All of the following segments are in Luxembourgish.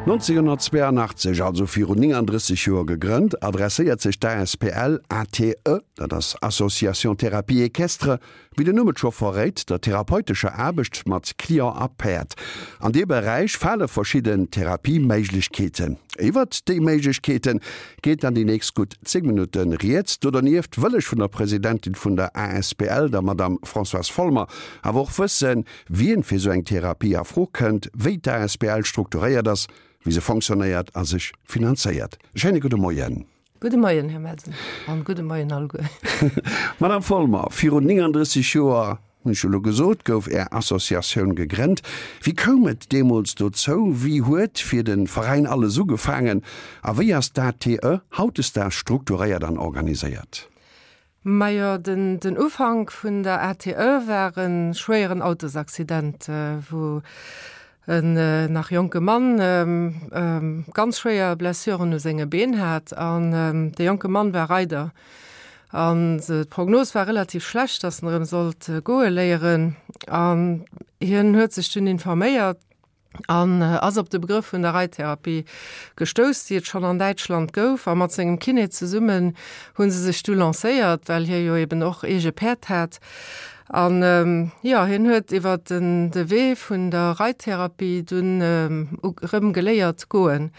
1982, also virun 39 Joer gegrënnt, adresséiert sech d'ASPL ATE, dat ass Association Thérapie Équestre, wéi den Numm et scho verréit, der therapeutescher Aarbecht mat Client a Päerd. An dee Beräich fale verschidden Therapieméiglechkeeten. Iwwert déi Méiglechkeete geet dann déi nächst gutt 10 Minutte rieds. Do dernieft wëll ech vun der Presidentin vun der ASPL, der Madame Françoise Folmer, awer och wëssen, Wien fir sou eng Therapie a Fro kënnt, wéi d'ASBL strukturéiert ass, wéi se fonctionnéiert a sech finanzéiert. E schéine gudde Moien. Gudde Moien, Här Melsen, an gudde Moien alleguer. Madame Folmer, virun 39 Joer, hunn ech elo gesot, gouf Är Associatioun gegrennt. Wéi koum et deemools dozou? Wéi huet fir de Veräin alles ugefaangen a wéi ass d'ATE hautdesdaags strukturéiert an organiséiert? Majo, den Ufank vun der ATE war e schwéieren Autosaccident, wou en nach jonke Mann ganz schwéier Blessuren u senge Been hat. An de jonke Mann war Reider. An d'Prognos war relativ schlecht, datt en erëm sollt goe léieren. An hien huet sech dunn informéiert. an ass op de Begrëff vun der Reittherapie gestouss, déi et schonn an Däitschland gouf. A mat sengem Kiné zesummen hu se sech du lancéiert, well hie jo eben och eege Päerd hat. An jo, hien huet iwwer den de Wee vun der Reittherapie dunn erëm geléiert goen.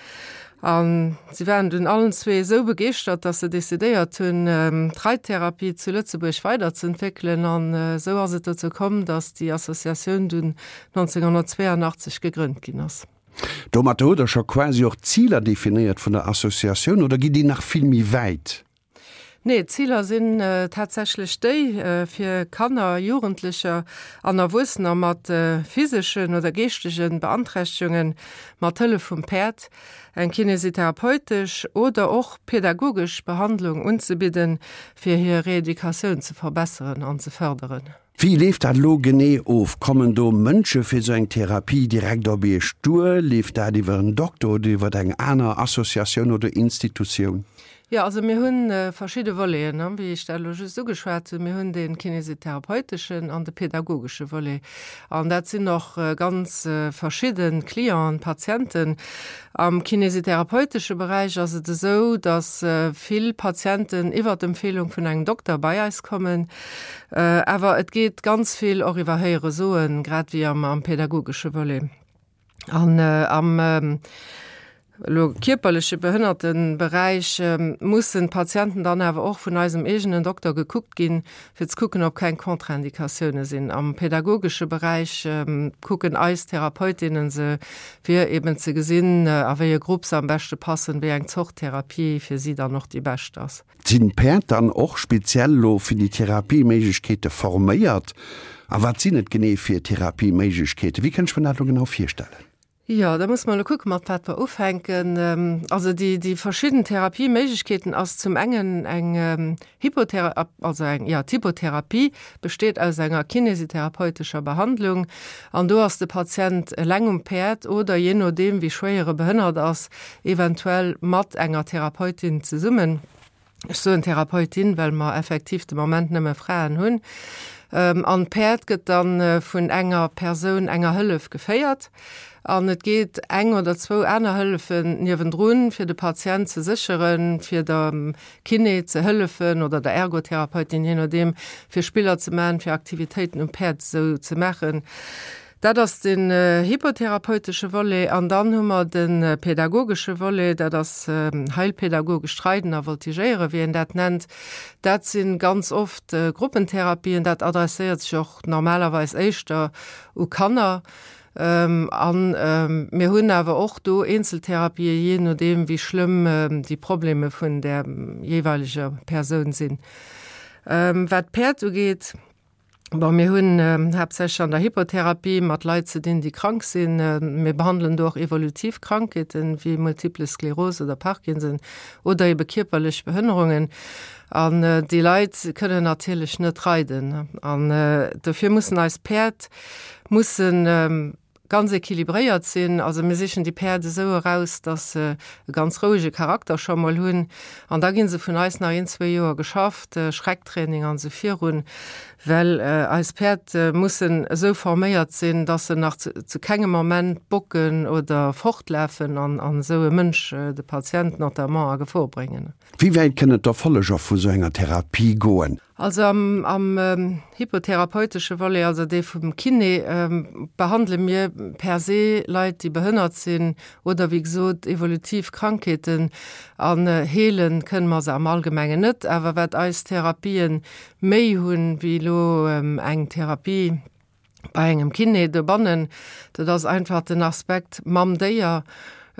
A si waren dunn allen zwee esou begeeschtert, datt se decidéiert hunn, d'Reittherapie zu Lëtzebuerg weiderzëentwéckelen. An esou ass et dozou komm, datt déi Associatioun dunn 1982 gegrënnt ginn ass. Domatter hutt Der scho quasi och d'Ziler definéiert vun der Associatioun, oder gitt Dir nach vill méi wäit? Nee, d'Ziler sinn tatsächlech déi, fir Kanner, Jugendlecher an Erwuessener mat physeschen oder geeschtege Beanträchtegungen mat Hëllef vum Päerd eng kinesitherapeutesch oder och pedagogesch Behandlung unzebidden, fir hir Reeducatioun ze verbesseren an ze fërderen. Wéi leeft dat elo genee of? Kommen do Mënsche fir esou eng Therapie direkt op Iech duer? Leeft dat iwwer en Dokter oder iwwer eng aner Associatioun oder Institutioun? Jo, also mir hu verschidde Voleten, wéi ech dat elo just ugeschwat hunn. Mir hunn dee kinesitherapeuteschen an de pedagogesche Volet. An dat sinn och ganz verschidde Clienten, Patienten. Am kinesitherapeutesche Beräich ass et esou, datt vill Patienten iwwer d'Empfeelung vun engem Dokter bei eis kommen. Awer et geet ganz vill och iwwer Héiere soen, grad wéi am pedagogesche Volet. An am elo kierperleche Behënnerteberäich mussen d'Patienten dann awer och vun eisem eegenen Dokter gekuckt ginn, fir ze kucken, ob keng Contre-indicatioune sinn. Am pedagogesche Beräich kucken eis Therapeutinnen se, fir eben ze gesinn, a wéi e Grupp se am beschte passen, wéi eng Zort Therapie fir si dann och déi bescht ass. Sinn d'Päerd dann och speziell elo fir déi Therapieméiglechkeete forméiert? A wat sinn et genee fir Therapieméiglechkeeten? Wéi kënnt ech mer dat elo genau virstellen? Jo, da musse mer elo kucken, mat wat mer ufänken. Also déi, déi verschidden Therapieméiglechkeeten ass zum engen eng Hippothe-, also eng, jo, d'Hippotherapie besteet aus enger kinesitherapeutescher Behandlung an do ass de Patient eleng um Päerd oder, jee nodeem wéi schwéier e behënnert ass, eventuell mat enger Therapeutin zesummen. Ech soen Therapeutin, well mer effektiv de Moment nëmme Fraen hunn. An d'Päerd gëtt dann vun enger Persoun, enger Hëllef geféiert. An et geet eng oder zwou aner Hëllefen niewendrun, fir de Patient ze sécheren, fir der Kiné ze hëllefen oder der Ergotherapeutin, jee nodeem, fir Spiller ze maachen, fir Aktivitéiten um Päerd esou ze maachen. Dat ass den hippothérapeutesche Volet. An dann hu mer de pädagogesche Volet, dat ass heilpädagogescht Reiden a Voltigéieren, wéi een dat nennt. Dat si ganz oft Gruppentherapien. Dat adresséiert sech och normalerweis éischter u Kanner. A mir hunn awer och do Eenzeltherapien, jee nodeem wéi schlëmm déi Probleme vun där jeeweileger Persoun sinn. Wat d'Päerd ugeet, Bon, mir hunn haaptsächlech an der Hippotherapie mat Leit ze dinn, déi krank sinn. Mir behandelen do och evolutiv Krankheeten, wéi Multiple Sklerose oder Parkinson oder ebe kierperlech Behënnerungen. An déi Leit kënnen natierlech net reiden. An dofir mussen eis Päerd mussen. Ganz equilibréiert sinn. Also mir sichen déi Päerd esou eraus, dass se e ganz rouege Charakter scho mol hunn. An da gi se vun eis nach een, zwee Joer geschafft, Schrecktraining an esou virun, well eis Päerd mussen esou forméiert sinn, dass se nach zu kengem Moment bocken oder fortlafen an esou e Mënsch, de Patient notamment, a Gefor bréngen. Wéi wäit kënnen d'Erfolleger vu sou enger Therapie goen? Also am am hypotherapeutesche Volet, also dee vum Kiné, behandele mir per se Leit, déi behënnert sinn oder wéi gesot evolutiv Krankheeten. An heele kënne mer se am Allgemengen net. Awer wat eis Therapien méi hunn, wéi elo eng Therapie, bei engem Kiné dobannen, dat ass einfach den Aspekt mam Déier,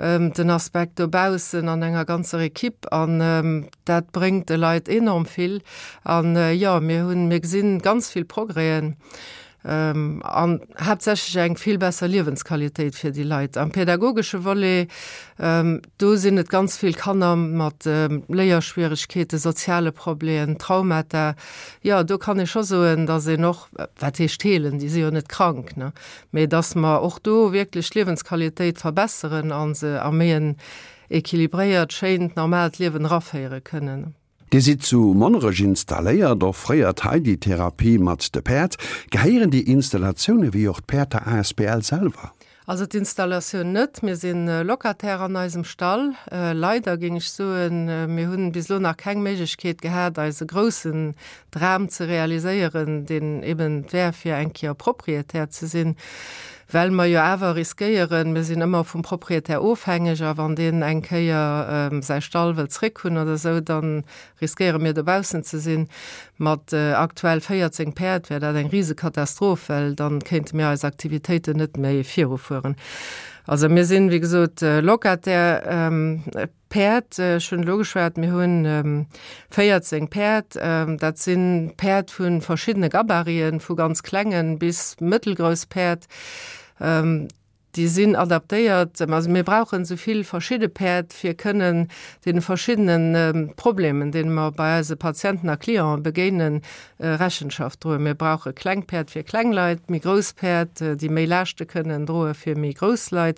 den Aspekt dobaussen an enger ganzer Equipe an dat bréngt de Leit enorm vill. An jo, mir hunn, mir gesinn ganz vill Progrèsen an haaptsächlech eng vill besser Liewensqualitéit fir déi Leit. Am pädagogesche Volet, do sinn et ganz vill Kanner mat Léierschwieregkeeten, soziale Problemen, Traumata. Jo, do kann ee scho soen, datt een och Wat heescht heelen? Déi si jo net krank, ne? Mee dass mer och do wierklech d'Liewensqualitéit verbesseren a se a méi en équilibréiert, schéint, normaalt Liewen eraféiere kënnen. Dir sidd zu Monnerech installéiert, offréiert hei déi Therapie mat de Päerd. Gehéieren déi Installatioune wéi och d'Päerd der asbl selwer? Also d'Installatioun net. Mir si Locataire an eisem Stall. Leider, géing ech soen. Mir hunn bis elo nach keng Méiglechkeet gehat, eise groussen Dram ze realiséieren, deen eben wär, fir eng Kéier Proprietär ze sinn, well mer jo awer riskéieren, mir sinn ëmmer vum Proprietär ofhängeg, a wann deen eng Kéier säi Stall wëllt zréckhunn oder esou, dann Riskéiere mir dobaussen ze sinn. Mat aktuell 14 Päerd wär dat eng Risekatastroph, well dann kéinte mir eis Aktivitéiten net méi virufueren. Also mir sinn, wéi gesot, Locataire. Päerd, ech hunn elo geschwat, mir hunn 14 Päerd. Dat si Päerd vu verschiddene Gabariten, vu ganz klengen bis mëttelgrouss Päerd. Déi sinn adaptéiert. Also mir brauchen esou vill verschidde Päerd, fir kënnen deene verschiddene Problemen, deene mer bei eise Patienten a Clienten begéinen, Rechenschaft droen. Mir brauche kleng Päerd fir kleng Leit, méi grouss Päerd, déi méi Laaschte kënnen droe fir méi grouss Leit.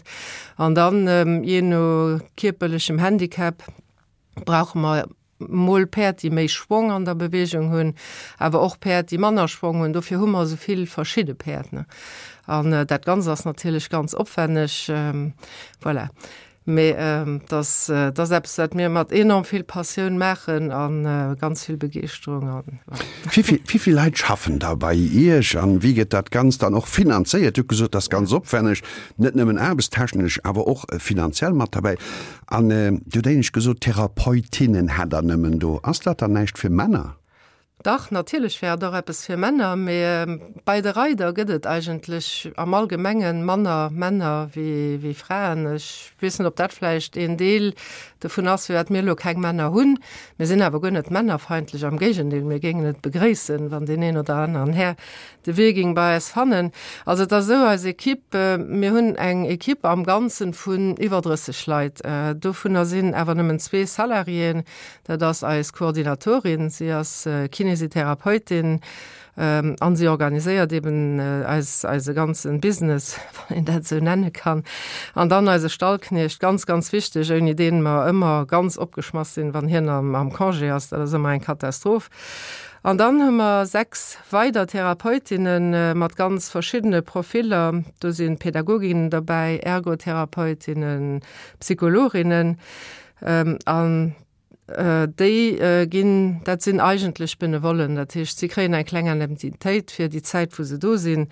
An dann, jee no kierperlechem Handicap, brauche mer Mol Päerd, déi méi Schwong an der Bewegung hunn, awer och Päerd, déi manner Schwong hunn. Dofir hu mer esou vill verschidde Päerd. An dat Ganzt ass natierlech ganz opwänneg. Voilà. Mee et ass, et ass eppes, wat mir mat enorm vill Passioun maachen a ganz vill Begeeschterung. An voilà. Wéi vill Leit schaffen da bei Iech an wéi gëtt dat Ganzt dann och finanzéiert? Dir hutt gesot, et ass ganz opwänneg, net nëmmen aarbechtstechnesch, awer och finanziell mat derbäi. An Dir hutt éinescht gesot, Therapeutinnen hätt Der nëmmen do. Ass dat dann näischt fir Männer? Dach, natierlech wär et och eppes fir Männer, mee bei de Reider gëtt et eigentlech am Allgemenge manner Männer wéi Fraen. Ech weess net, ob dat vläicht een Deel dovun ass, firwat mir elo keng Männer hunn. Mir sinn awer guer net männerfeindlech, am Géigendeel, mir géingen et begréissen, wann deen een oder aneren Här De Wee ging bei eis fannen. Also et ass esou, eis Equipe, mir hunn eng Equipe am Ganzen vun iwwer 30 Leit. Dovunner sinn awer nëmmen zwee Salariéen. Dat ass eis Koordinatorin, si ass Kinesitherapeutin an si organiséiert eben eis, eise ganzen Business, wann een dat esou nenne kann. An dann eise Stallkniecht, ganz, ganz wichteg, ouni deen mer ëmmer ganz opgeschmass sinn, wann hien am, am Congé ass. Dat ass ëmmer eng Katastroph. An dann hu mer 6 weider Therapeutinne mat ganz verschiddene Profiller. Do si Pädagoginnen derbäi, Ergotherapeutinnen, Psychologinnen. An déi ginn, dat sinn eigentlech Benevollen, dat heescht, si kréien eng kleng Indemnitéit fir déi Zäit, wou se do sinn,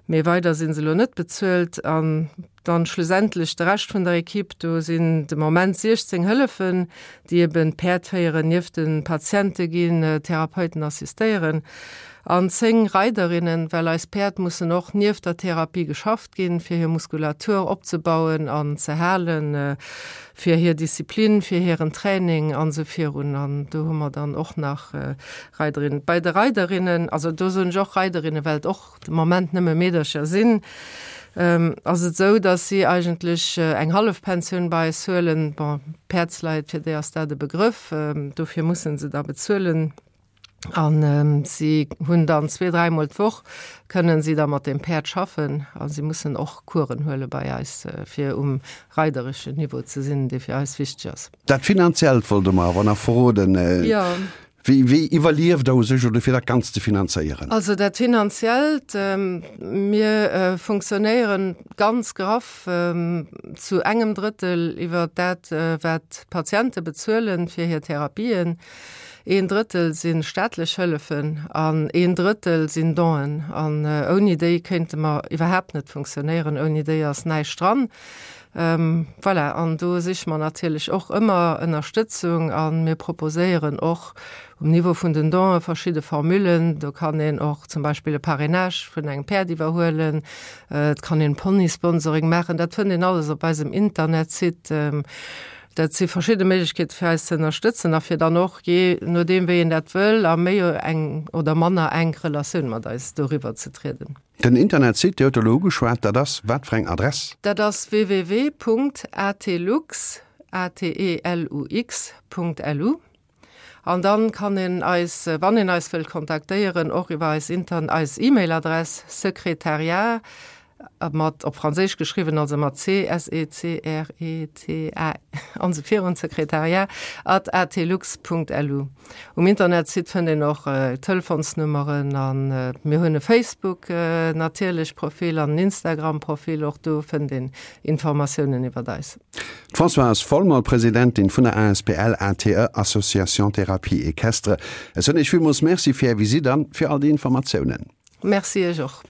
mee weider si se elo net bezuelt. An Dann schlussendlech de Rescht vun der Equipe, do sinn de Moment 16 Hëllefen, déi eben d'Päerd féieren, nieft de Patiente ginn, Therapeuten assistéieren an 10 Reiderinnen, well eis Päerd mussen och nieft der Therapie geschafft ginn, fir hir Muskulatur opzebauen an ze halen, fir hir Disziplin, fir hiren Training an esou virun. An do hu mer dann och nach Reiderinnen. Bei de Reiderinnen, also do soen ech och Reiderinnen, well et och de Moment nëmme Meedercher sinn, ass et esou, datt si eigentlech eng Hallefpensioun bei eis huelen. Bon, Päerdsleit, fir déi ass dat e Begrëff, dofir musse se da bezuelen. An si hunn dann zwee, dräimol d'Woch kënnen si da mat dem Päerd schaffen a si mussen och Coursen huele bei eis, fir um reidereschen Niveau ze sinn, dee fir eis wichteg ass. Dat Finanziellt wollt Der mer awer nach verroden. Jo. Wéi, wéi iwwerlieft Der u sech oder fir dat Ganzt ze finanzéieren? Also dat Finanziellt, mir funktionéieren ganz graff zu engem Drëttel iwwer dat, wat d'Patiente bezuelen fir hir Therapien. Een Drëttel si staatlech Hëllefen an een Drëttel sinn Donen. An ouni déi kéinte mer iwwerhaapt net funktionéieren. Ouni déi ass näischt dran. Voilà, an do siche mer natierlech och ëmmer Ënnerstëtzung a mir proposéieren och um Niveau vun den Donen verschidde Formullen. Do kann een och zum Beispill e Parrainage vun engem Päerd iwwerhuelen. Et kann een Ponysponsoring maachen. Dat fënnt een alles op eisem Internetsite. Dat si verschidde Méiglechkeete fir eis ze ënnerstëtzen a fir dann och, jee nodeem wéi een dat wëll, a méi eng oder manner enk Relatioun mat eis doriwwer ze trieden. Den Internetsite, Dir huet elo ugeschwat, dat ass wat fir eng Adress? Dat ass www.atelux, A-T-E-L-U-X, Punkt lu. An dann kann een eis, wann een eis wëllt kontaktéieren, och iwwer eis Intern-, eis E-Mail-Adress secrétariat, mat op Franséisch geschriwwen, also mat C, S E C R E T A an esou virun, secrétariat at atelux Punkt lu. Um Internetsite fënnt een och Telefonsnummeren an mir hunn e Facebook natierlech Profil an en Instagram Profil, och do fënnt een Informatiounen iwwert eis. D'Françoise Folmer, Presidentin vun der asbl ATE, Association Thérapie Equestre. Ech soen Iech villmools Merci fir Är Visitt an fir all déi Informatiounen. Merci Iech och.